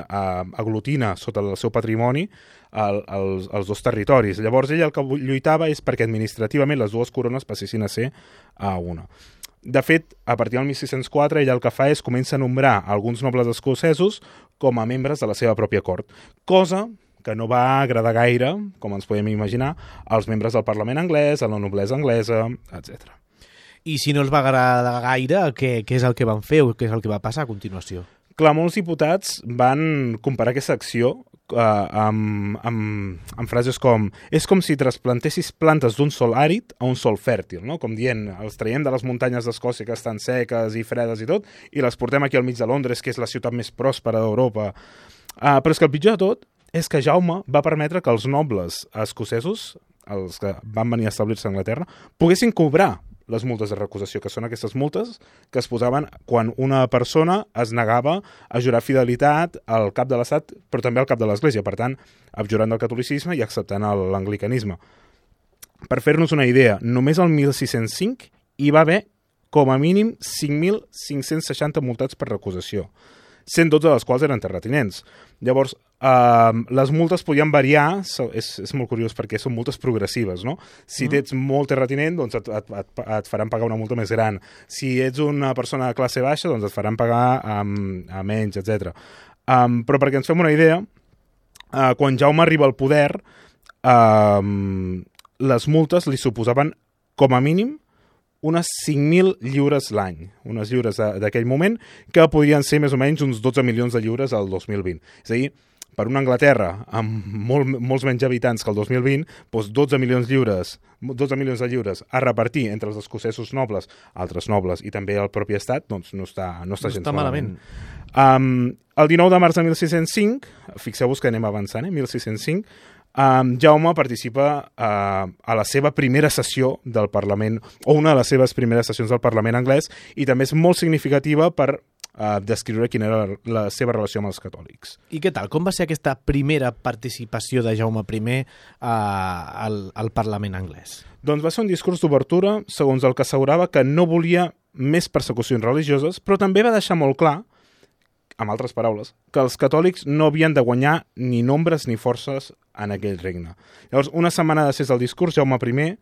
aglutina sota el seu patrimoni els dos territoris. Llavors, ell el que lluitava és perquè administrativament les dues corones passessin a ser una. De fet, a partir del 1604, ell el que fa és comença a nombrar alguns nobles escocesos com a membres de la seva pròpia cort, cosa que no va agradar gaire, com ens podem imaginar, als membres del Parlament anglès, a la noblesa anglesa, etc. I si no els va agradar gaire, què és el que van fer o què és el que va passar a continuació? Clar, molts diputats van comparar aquesta acció amb frases com és com si trasplantessis plantes d'un sol àrid a un sol fèrtil, no? Com dient, els traiem de les muntanyes d'Escòcia que estan seques i fredes i tot, i les portem aquí al mig de Londres, que és la ciutat més pròspera d'Europa. Però és que el pitjor de tot és que Jaume va permetre que els nobles escocesos, els que van venir a establir-se a Anglaterra, poguessin cobrar les multes de recusació, que són aquestes multes que es posaven quan una persona es negava a jurar fidelitat al cap de l'Estat, però també al cap de l'Església, per tant, abjurant del catolicisme i acceptant l'anglicanisme. Per fer-nos una idea, només el 1605 hi va haver com a mínim 5.560 multats per recusació, 112 de les quals eren terratinents. Llavors, les multes podien variar, és molt curiós perquè són multes progressives, no? Si ets molt terratinent, doncs et faran pagar una multa més gran. Si ets una persona de classe baixa, doncs et faran pagar a menys, etc. Però perquè ens fem una idea, quan Jaume arriba al poder, les multes li suposaven com a mínim unes 5.000 lliures l'any, unes lliures d'aquell moment, que podrien ser més o menys uns 12 milions de lliures al 2020. És a dir, per una Anglaterra amb molts menys habitants que el 2020, doncs 12 milions de lliures a repartir entre els escocesos nobles, altres nobles i també el propi estat, doncs no està gens malament. El 19 de març de 1605, fixeu-vos que anem avançant, 1605, Jaume participa a la seva primera sessió del Parlament, o una de les seves primeres sessions del Parlament anglès, i també és molt significativa per descriure quina era la seva relació amb els catòlics. I què tal? Com va ser aquesta primera participació de Jaume I al Parlament anglès? Doncs va ser un discurs d'obertura, segons el que assegurava que no volia més persecucions religioses, però també va deixar molt clar, amb altres paraules, que els catòlics no havien de guanyar ni nombres ni forces en aquell regne. Llavors, una setmana després del discurs, Jaume I,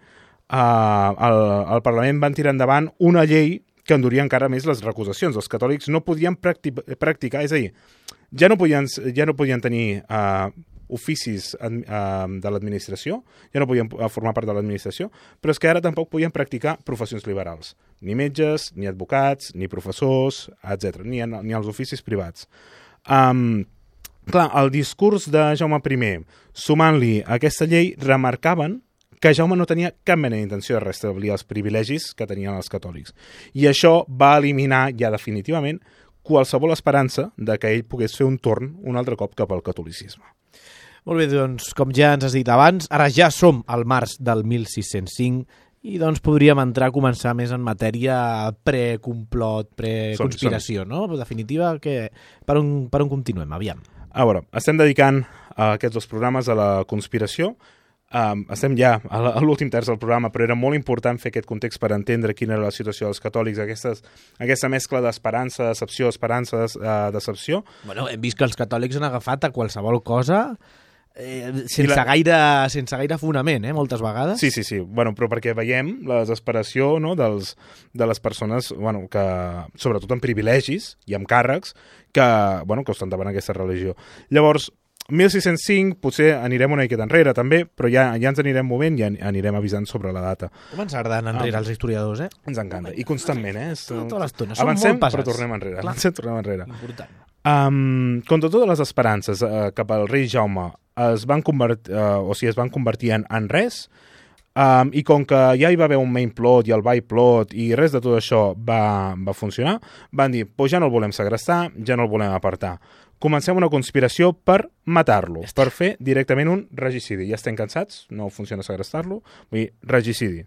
al Parlament van tirar endavant una llei que enduria encara més les recusacions. Els catòlics no podien practicar, és a dir, ja no podien tenir oficis de l'administració, ja no podien formar part de l'administració, però és que ara tampoc podien practicar professions liberals. Ni metges, ni advocats, ni professors, etc. Ni els oficis privats. Clar, el discurs de Jaume I, sumant-li aquesta llei, remarcaven que Jaume no tenia cap mena d'intenció de restablir els privilegis que tenien els catòlics. I això va eliminar ja definitivament qualsevol esperança de que ell pogués fer un torn un altre cop cap al catolicisme. Molt bé, doncs, com ja ens has dit abans, ara ja som al març del 1605 i doncs podríem entrar a començar més en matèria pre-complot, pre-conspiració, no? En definitiva, per on continuem? Aviam. A veure, estem dedicant aquests dos programes a la conspiració. Estem ja a l'últim terç del programa, però era molt important fer aquest context per entendre quina era la situació dels catòlics, aquesta mescla d'esperança, decepció, esperança, decepció. Bueno, hem vist que els catòlics han agafat a qualsevol cosa sense gaire fonament, moltes vegades. Sí. Bueno, però perquè veiem la desesperació, no, de les persones, bueno, que, sobretot amb privilegis i amb càrrecs, que estan davant aquesta religió. Llavors, 1605, potser anirem una miqueta enrere també, però ja ens anirem movent i anirem avisant sobre la data. Com ens agraden enrere els historiadors, Ens encanta, i constantment, Tota l'estona, som avancem, molt pesats. però tornem enrere. Important. Contra totes les esperances cap al rei Jaume es van convertir en res, i com que ja hi va haver un main plot i el by plot i res de tot això va funcionar, van dir, ja no el volem segrestar, ja no el volem apartar. Comencem una conspiració per matar-lo, per fer directament un regicidi. Ja estem cansats, no funciona segrestar-lo, vull dir, regicidi.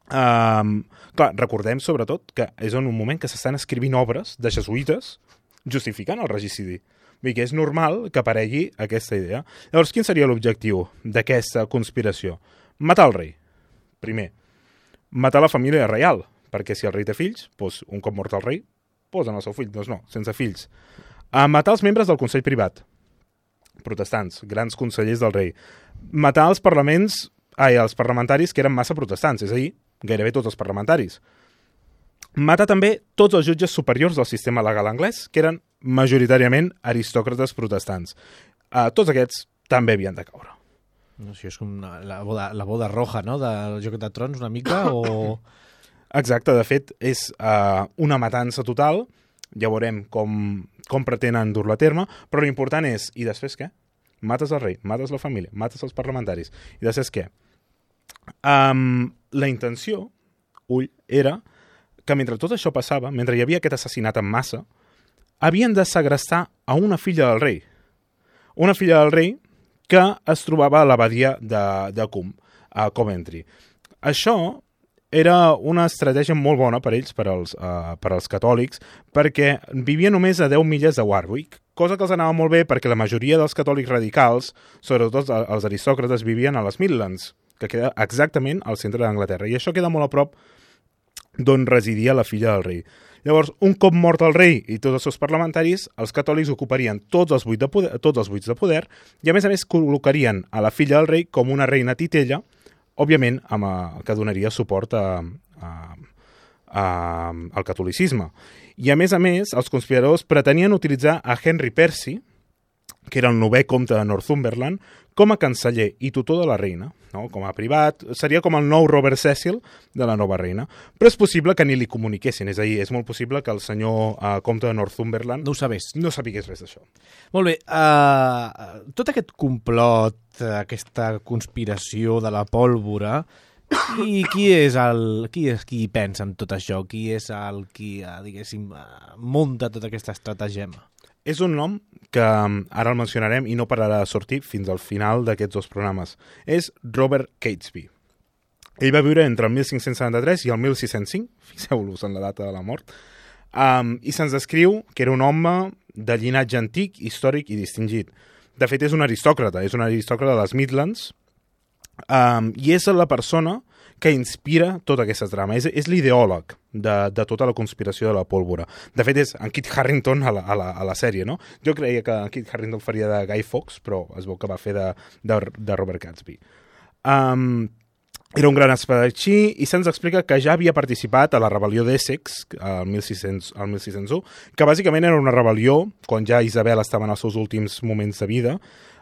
Clar, recordem sobretot que és en un moment que s'estan escrivint obres de jesuïtes justificant el regicidi. Vull dir que és normal que aparegui aquesta idea. Llavors, quin seria l'objectiu d'aquesta conspiració? Matar el rei, primer. Matar la família reial, perquè si el rei té fills, doncs un cop mort el rei, posen el seu fill, doncs no, sense fills. Matar els membres del Consell Privat, protestants, grans consellers del rei. Matar els parlamentaris que eren massa protestants, és a dir, gairebé tots els parlamentaris. Matar també tots els jutges superiors del sistema legal anglès, que eren majoritàriament aristòcrates protestants. Tots aquests també havien de caure. No sé, és com la boda roja, no?, del Joc de Trons, una mica, o... Exacte, de fet, és una matança total. Ja veurem com pretenen dur-la a terme, però l'important és, i després què? mates el rei, mates la família, mates els parlamentaris. I de saps què? La intenció, era que mentre tot això passava, mentre hi havia aquest assassinat en massa, havien de segrestar a una filla del rei. Una filla del rei que es trobava a l'abadia de Coombe, a Coventry. Això era una estratègia molt bona per ells, per als catòlics, perquè vivia només a 10 milles de Warwick, cosa que els anava molt bé perquè la majoria dels catòlics radicals, sobretot els aristòcrates, vivien a les Midlands, que queda exactament al centre d'Anglaterra. I això queda molt a prop d'on residia la filla del rei. Llavors, un cop mort el rei i tots els seus parlamentaris, els catòlics ocuparien tots els buits de poder i, a més, col·locarien a la filla del rei com una reina titella, òbviament, que donaria suport al catolicisme. I, a més, els conspiradors pretenien utilitzar a Henry Percy, que era el 9è comte de Northumberland, com a canceller i tutor de la reina, no? Com a privat, seria com el nou Robert Cecil de la nova reina. Però és possible que ni li comuniquessin, és a dir, és molt possible que el senyor comte de Northumberland no ho sabés. No sabigués res d'això. Molt bé, tot aquest complot, aquesta conspiració de la pólvora, qui hi pensa en tot això? Qui és el qui, diguéssim, munta tota aquesta estratagema? És un nom que ara el mencionarem i no pararà de sortir fins al final d'aquests 2 programes. És Robert Catesby. Ell va viure entre el 1573 i el 1605, fixeu-vos en la data de la mort, i se'ns descriu que era un home de llinatge antic, històric i distingit. De fet, és un aristòcrata de les Midlands, i és la persona que inspira tota aquesta trama. És l'ideòleg de tota la conspiració de la pólvora. De fet, és en Kit Harington a la sèrie, no? Jo creia que en Kit Harington faria de Guy Fawkes, però es veu que va fer de Robert Catesby. Era un gran espadatxí i se'ns explica que ja havia participat a la rebel·lió d'Essex al 1601, que bàsicament era una rebel·lió quan ja Isabel estava en els seus últims moments de vida,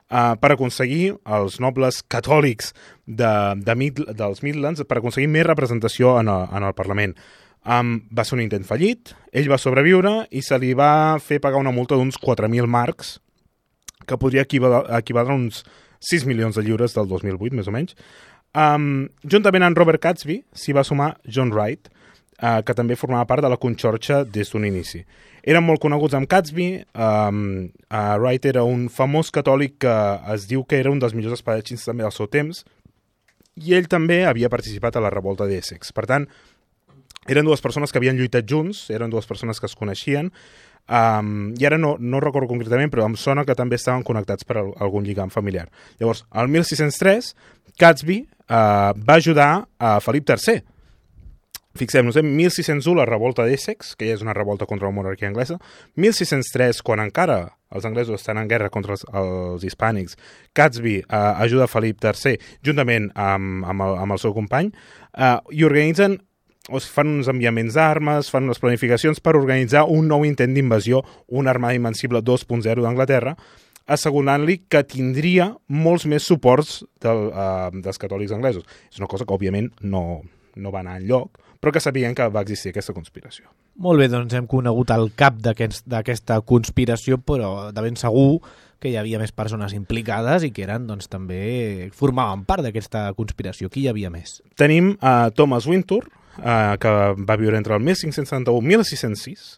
per aconseguir els nobles catòlics dels Midlands, per aconseguir més representació en el Parlament. Va ser un intent fallit, ell va sobreviure i se li va fer pagar una multa d'uns 4.000 marcs, que podria equivaldre a uns 6 milions de lliures del 2008, més o menys. Juntament amb Robert Catesby s'hi va sumar John Wright, que també formava part de la conxorxa des d'un inici. Eren molt coneguts amb Catesby. Wright era un famós catòlic que es diu que era un dels millors espadatxins també del seu temps, i ell també havia participat a la revolta d'Essex. Per tant, eren 2 persones que havien lluitat junts, eren 2 persones que es coneixien, i ara no recordo concretament, però em sona que també estaven connectats per algun lligam familiar. Llavors, al 1603, Catesby va ajudar a Felip III. Fixem-nos, en 1601 la revolta d'Essex, que ja és una revolta contra la monarquia anglesa, 1603, quan encara els anglesos estan en guerra contra els hispànics, Catesby ajuda Felip III juntament amb el seu company, i organitzen, fan uns enviaments d'armes, fan unes planificacions per organitzar un nou intent d'invasió, una armada invencible 2.0 d'Anglaterra, assegurant-li que tindria molts més suports dels catòlics anglesos. És una cosa que, òbviament, no va anar enlloc, però que sabien que va existir aquesta conspiració. Molt bé, doncs hem conegut el cap d'aquesta conspiració, però de ben segur que hi havia més persones implicades i que eren, doncs, també formaven part d'aquesta conspiració. Qui hi havia més? Tenim Thomas Wintour, que va viure entre el 1571 i 1606,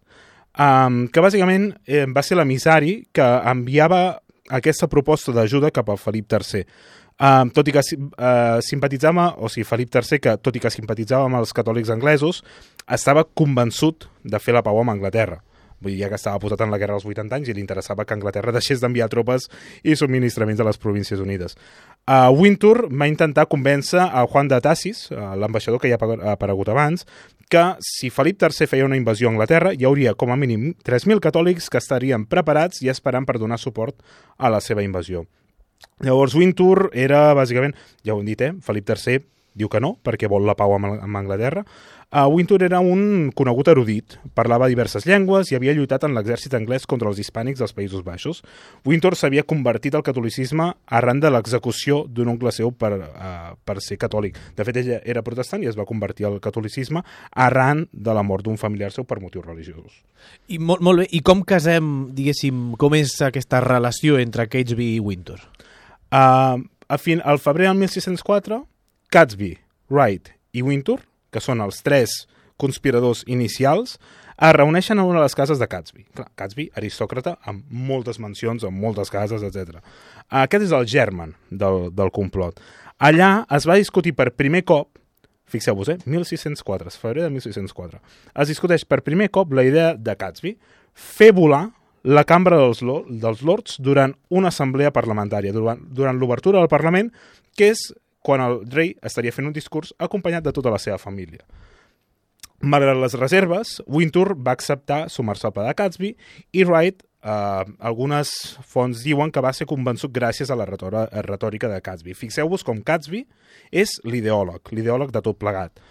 que bàsicament va ser l'emissari que enviava aquesta proposta d'ajuda cap al Felip III. Tot i que simpatitzava, o sigui, Felip III, que tot i que simpatitzava amb els catòlics anglesos, estava convençut de fer la pau amb Anglaterra. Vull dir, ja que estava posat en la guerra als 80 anys i li interessava que Anglaterra deixés d'enviar tropes i subministraments a les Províncies Unides. Wintour va intentar convèncer a Juan de Tassis, l'ambaixador que ja ha aparegut abans, que si Felip III feia una invasió a Anglaterra hi hauria com a mínim 3.000 catòlics que estarien preparats i esperant per donar suport a la seva invasió. Llavors Wintour era, bàsicament, ja ho hem dit, Felip III diu que no, perquè vol la pau amb Anglaterra. Wintour era un conegut erudit, parlava diverses llengües i havia lluitat en l'exèrcit anglès contra els hispànics dels Països Baixos. Wintour s'havia convertit al catolicisme arran de l'execució d'un oncle seu per ser catòlic. De fet, ella era protestant i es va convertir al catolicisme arran de la mort d'un familiar seu per motius religiosos. I molt bé, i com casem, diguéssim, com és aquesta relació entre Catesby i Wintour? Al febrer del 1604, Catesby, Wright i Wintour, que són els 3 conspiradors inicials, es reuneixen en una de les cases de Catesby. Clar, Catesby, aristòcrata, amb moltes mansions, amb moltes cases, etc. Aquest és el germen del complot. Allà es va discutir per primer cop, fixeu-vos, 1604, febrer de 1604, es discuteix per primer cop la idea de Catesby fer volar la Cambra dels Lords durant una assemblea parlamentària, durant l'obertura del Parlament, que és quan el rei estaria fent un discurs acompanyat de tota la seva família. Malgrat les reserves, Wintour va acceptar sumar-se al pla de Catesby i Wright, algunes fonts diuen que va ser convençut gràcies a la retòrica de Catesby. Fixeu-vos com Catesby és l'ideòleg de tot plegat.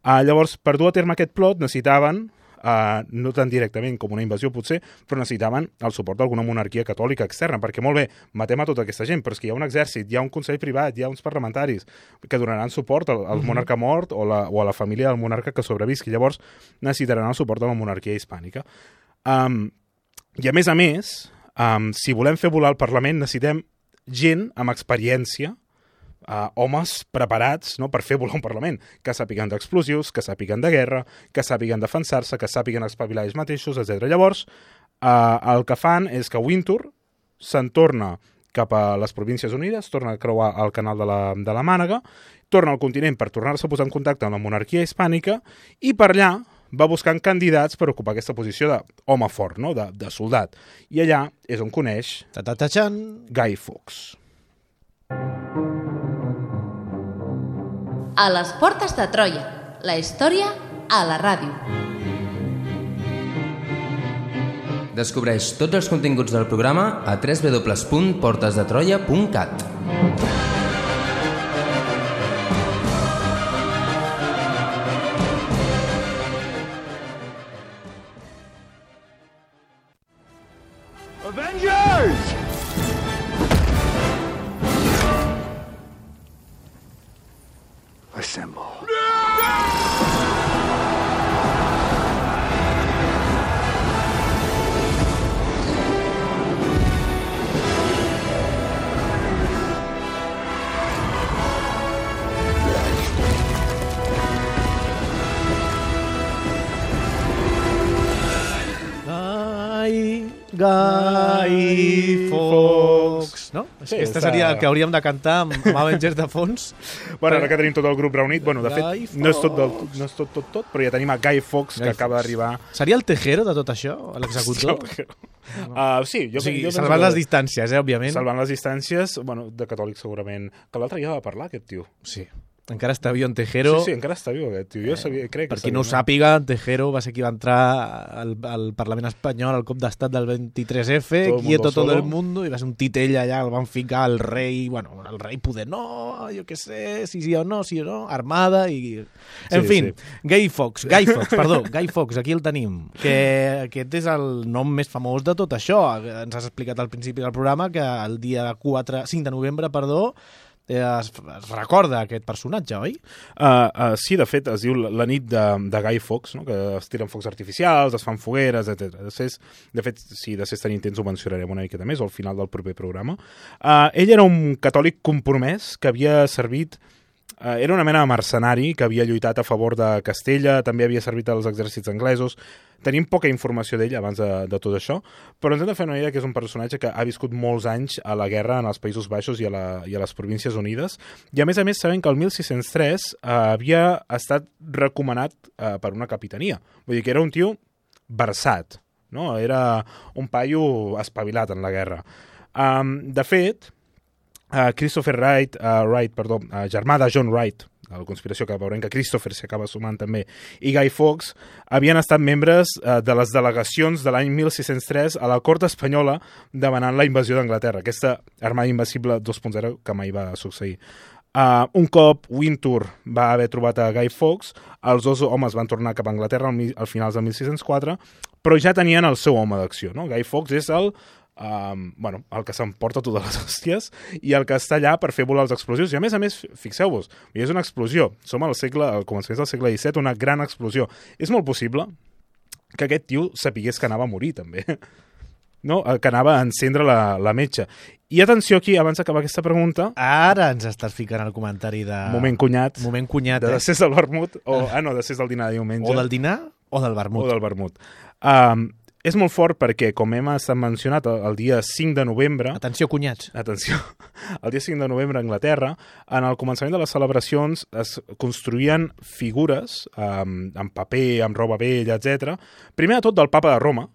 Llavors, per dur a terme aquest plot necessitaven, no tan directament com una invasió potser, però necessitaven el suport d'alguna monarquia catòlica externa, perquè molt bé, matem a tota aquesta gent, però és que hi ha un exèrcit, hi ha un consell privat, hi ha uns parlamentaris que donaran suport al monarca mort o a la família del monarca que sobrevisqui. Llavors necessitaran el suport de la monarquia hispànica. I a més, si volem fer volar el Parlament necessitem gent amb experiència, homes preparats, no, per fer volar un Parlament, que sàpiguen d'explosius, que sàpiguen de guerra, que sàpiguen defensar-se, que sàpiguen espavilar ells mateixos, etc. Llavors, el que fan és que Wintour se'n torna cap a les Províncies Unides, torna a creuar el canal de la Mànega, torna al continent per tornar-se a posar en contacte amb la monarquia hispànica i per allà va buscant candidats per ocupar aquesta posició d'home fort, no? de soldat. I allà és on coneix Guy Fawkes. A les portes de Troia, la història a la ràdio. Descobreix tots els continguts del programa a www.portesdetroia.cat. Avengers! Assemble. Guy Fawkes, no? Sí, Aquesta seria el que hauríem de cantar amb Avengers de fons. Bueno, ara que tenim tot el grup reunit, bueno, de fet, no és tot, però ja tenim a Guy Fawkes, que acaba d'arribar. Seria el Tejero de tot això, l'executor? Sí, jo salvant les distàncies, òbviament. Salvant les distàncies, bueno, de catòlic segurament. Que l'altre ja va parlar, aquest tio. Sí. Encara està viu en Tejero. Sí, encara està viu aquest tio. Jo crec que per qui no ho sàpiga, Tejero va ser qui va entrar al Parlament espanyol al cop d'estat del 23F, quieto todo el mundo, i va ser un titell allà, el van ficar el rei, bueno, el rei poder, no, jo què sé, sí o no, armada i... En fi, Guy Fawkes, aquí el tenim, que aquest és el nom més famós de tot això. Ens has explicat al principi del programa que el dia 5 de novembre, es recorda aquest personatge, oi? Sí, de fet, es diu la nit de Guy Fawkes, no? Que es tiren focs artificials, es fan fogueres, etc. De fet, si després tenim temps ho mencionarem una miqueta més, o al final del proper programa. Ell era un catòlic compromès que havia servit... Era una mena de mercenari que havia lluitat a favor de Castella, també havia servit als exèrcits anglesos. Tenim poca informació d'ell abans de tot això, però ens hem de fer una idea que és un personatge que ha viscut molts anys a la guerra en els Països Baixos i a les Províncies Unides, i a més sabem que el 1603 havia estat recomanat per una capitania. Vull dir que era un tio versat, no? Era un paio espavilat en la guerra. De fet, Christopher Wright, germà de John Wright, la conspiració que veurem que Christopher s'hi acaba sumant també, i Guy Fawkes, havien estat membres de les delegacions de l'any 1603 a la cort espanyola demanant la invasió d'Anglaterra, aquesta armada invencible 2.0 que mai va succeir. Un cop Wintour va haver trobat a Guy Fawkes, els dos homes van tornar cap a Anglaterra al finals de 1604, però ja tenien el seu home d'acció. No? Guy Fawkes és el que s'emporta totes les hòsties i el que està allà per fer volar els explosius. I a més, fixeu-vos, és una explosió. Som al començament del segle XVII, una gran explosió. És molt possible que aquest tio sapigués que anava a morir, també. No? Que anava a encendre la metxa. I atenció aquí, abans d'acabar aquesta pregunta... Ara ens estàs ficant el comentari de... Moment cunyat. De Decés del vermut. Decés del dinar de diumenge. O del dinar o del vermut. O del vermut. És molt fort perquè, com hem estat mencionat, el dia 5 de novembre... Atenció, cunyats. Atenció. El dia 5 de novembre a Anglaterra, en el començament de les celebracions es construïen figures amb paper, amb roba vella, etc. Primer de tot del papa de Roma,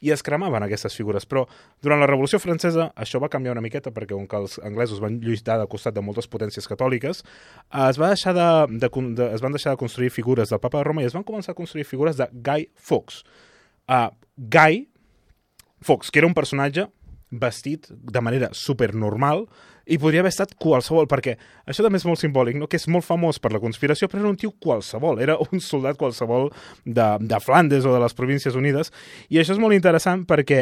i es cremaven aquestes figures. Però durant la Revolució Francesa això va canviar una miqueta perquè com que els anglesos van lluitar de costat de moltes potències catòliques, es van deixar de construir figures del papa de Roma i es van començar a construir figures de Guy Fawkes. Guy Fawkes, que era un personatge vestit de manera supernormal i podria haver estat qualsevol, perquè això també és molt simbòlic, no? Que és molt famós per la conspiració, però era un tio qualsevol, era un soldat qualsevol de Flandes o de les Províncies Unides, i això és molt interessant perquè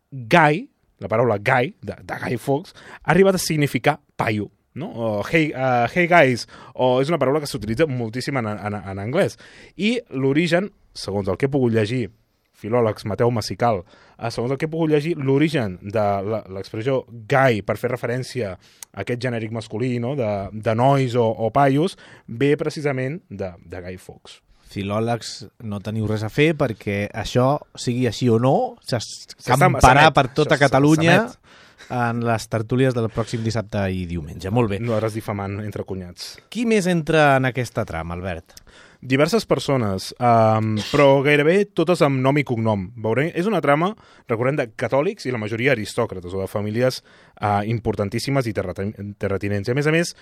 Guy, la paraula Guy, de Guy Fawkes, ha arribat a significar paio, no? O hey guys, o és una paraula que s'utilitza moltíssim en anglès. I l'origen, segons el que he pogut llegir, filòlegs, Mateu Massical, segons el que he pogut llegir, l'origen de l'expressió guy per fer referència a aquest genèric masculí, no? de nois o paios, ve precisament de Guy Fawkes. Filòlegs, no teniu res a fer perquè això, sigui així o no, s'escamparà per tota Catalunya en les tertúlies del pròxim dissabte i diumenge. Molt bé. No eres difamant entre cunyats. Qui més entra en aquesta trama, Albert? Diverses persones, però gairebé totes amb nom i cognom. Veurem, és una trama, recordem, de catòlics i la majoria aristòcrates o de famílies importantíssimes i terratinents. I a més,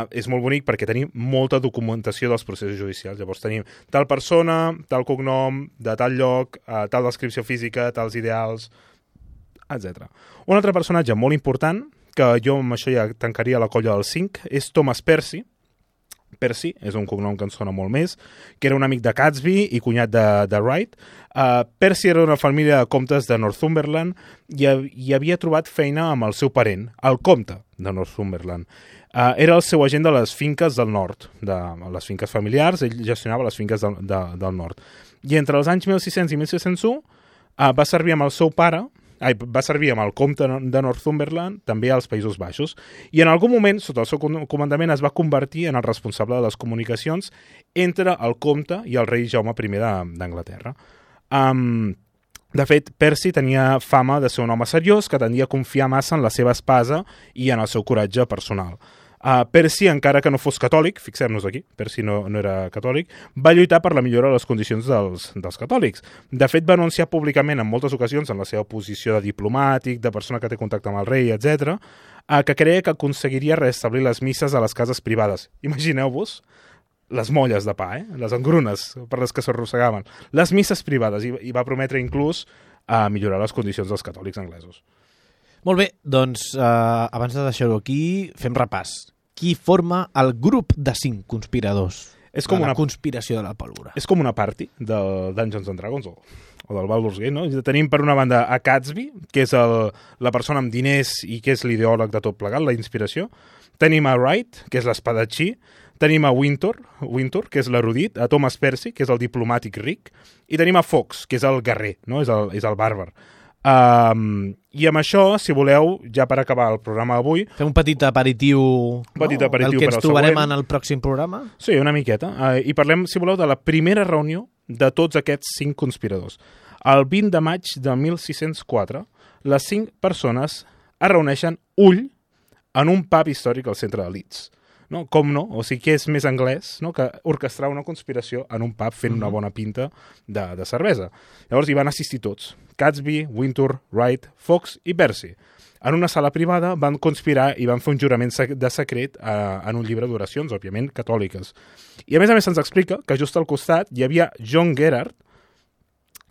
és molt bonic perquè tenim molta documentació dels processos judicials. Llavors tenim tal persona, tal cognom, de tal lloc, tal descripció física, tals ideals, etc. Un altre personatge molt important, que jo amb això ja tancaria la colla del 5, és Thomas Percy. Percy, és un cognom que ens sona molt més, que era un amic de Catesby i cunyat de Wright. Percy era una família de comtes de Northumberland i havia trobat feina amb el seu parent, el comte de Northumberland. Era el seu agent de les finques del nord, de les finques familiars, ell gestionava les finques del nord. I entre els anys 1600 i 1601 va servir amb el seu pare, va servir amb el comte de Northumberland, també als Països Baixos, i en algun moment, sota el seu comandament, es va convertir en el responsable de les comunicacions entre el comte i el rei Jaume I d'Anglaterra. De fet, Percy tenia fama de ser un home seriós que tendia a confiar massa en la seva espasa i en el seu coratge personal. Percy, encara que no fos catòlic, fixem-nos aquí, Percy no era catòlic, va lluitar per la millora de les condicions dels catòlics. De fet, va anunciar públicament en moltes ocasions, en la seva posició de diplomàtic, de persona que té contacte amb el rei, etc., que creia que aconseguiria restablir les misses a les cases privades. Imagineu-vos les molles de pa, les engrunes per les que s'arrossegaven, les misses privades, i va prometre inclús millorar les condicions dels catòlics anglesos. Molt bé, doncs abans de deixar-ho aquí, fem repàs. Qui forma el grup de 5 conspiradors de la conspiració de la pólvora? És com una party del Dungeons and Dragons o del Baldur's Gate, no? Tenim per una banda a Catesby, que és la persona amb diners i que és l'ideòleg de tot plegat, la inspiració. Tenim a Wright, que és l'espadatxí. Tenim a Wintour, que és l'erudit, a Thomas Percy, que és el diplomàtic ric, i tenim a Fawkes, que és el guerrer, no? És el bàrbar. I amb això, si voleu, ja per acabar el programa d'avui... Fem un petit aperitiu, el que ens trobarem en el pròxim programa? Sí, una miqueta. I parlem, si voleu, de la primera reunió de tots aquests 5 conspiradors. El 20 de maig de 1604, les 5 persones es reuneixen en un pub històric al centre de Leeds. No? Com no? O sigui, que és més anglès, no? Que orquestrar una conspiració en un pub fent una bona pinta de cervesa. Llavors hi van assistir tots. Catesby, Wintour, Wright, Fawkes i Percy. En una sala privada van conspirar i van fer un jurament de secret en un llibre d'oracions, òbviament catòliques. I a més se'ns explica que just al costat hi havia John Gerard,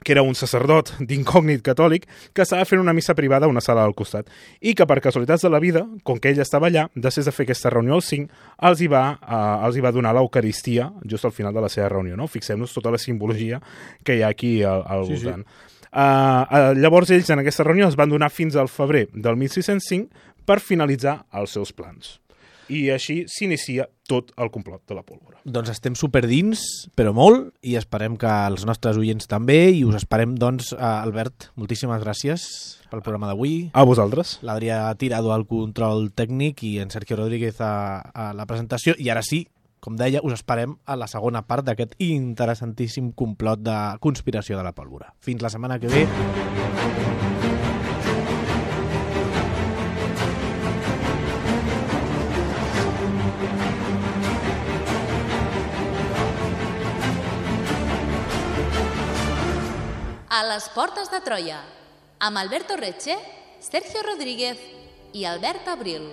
que era un sacerdot d'incògnit catòlic, que estava fent una missa privada a una sala al costat. I que per casualitats de la vida, com que ell estava allà, després de fer aquesta reunió als 5, els hi va donar l'Eucaristia just al final de la seva reunió. No? Fixem-nos tota la simbologia que hi ha aquí al voltant. Llavors ells en aquesta reunió es van donar fins al febrer del 1605 per finalitzar els seus plans. I així s'inicia tot el complot de la pólvora. Doncs estem superdins, però molt, i esperem que els nostres oients també, i us esperem, doncs, Albert, moltíssimes gràcies pel programa d'avui. A vosaltres. L'Adrià Tirado al control tècnic i en Sergio Rodríguez a la presentació, i ara sí, com deia, us esperem a la segona part d'aquest interessantíssim complot de conspiració de la pólvora. Fins la setmana que ve. A les portes de Troia, amb Alberto Retxe, Sergio Rodríguez i Albert Abril.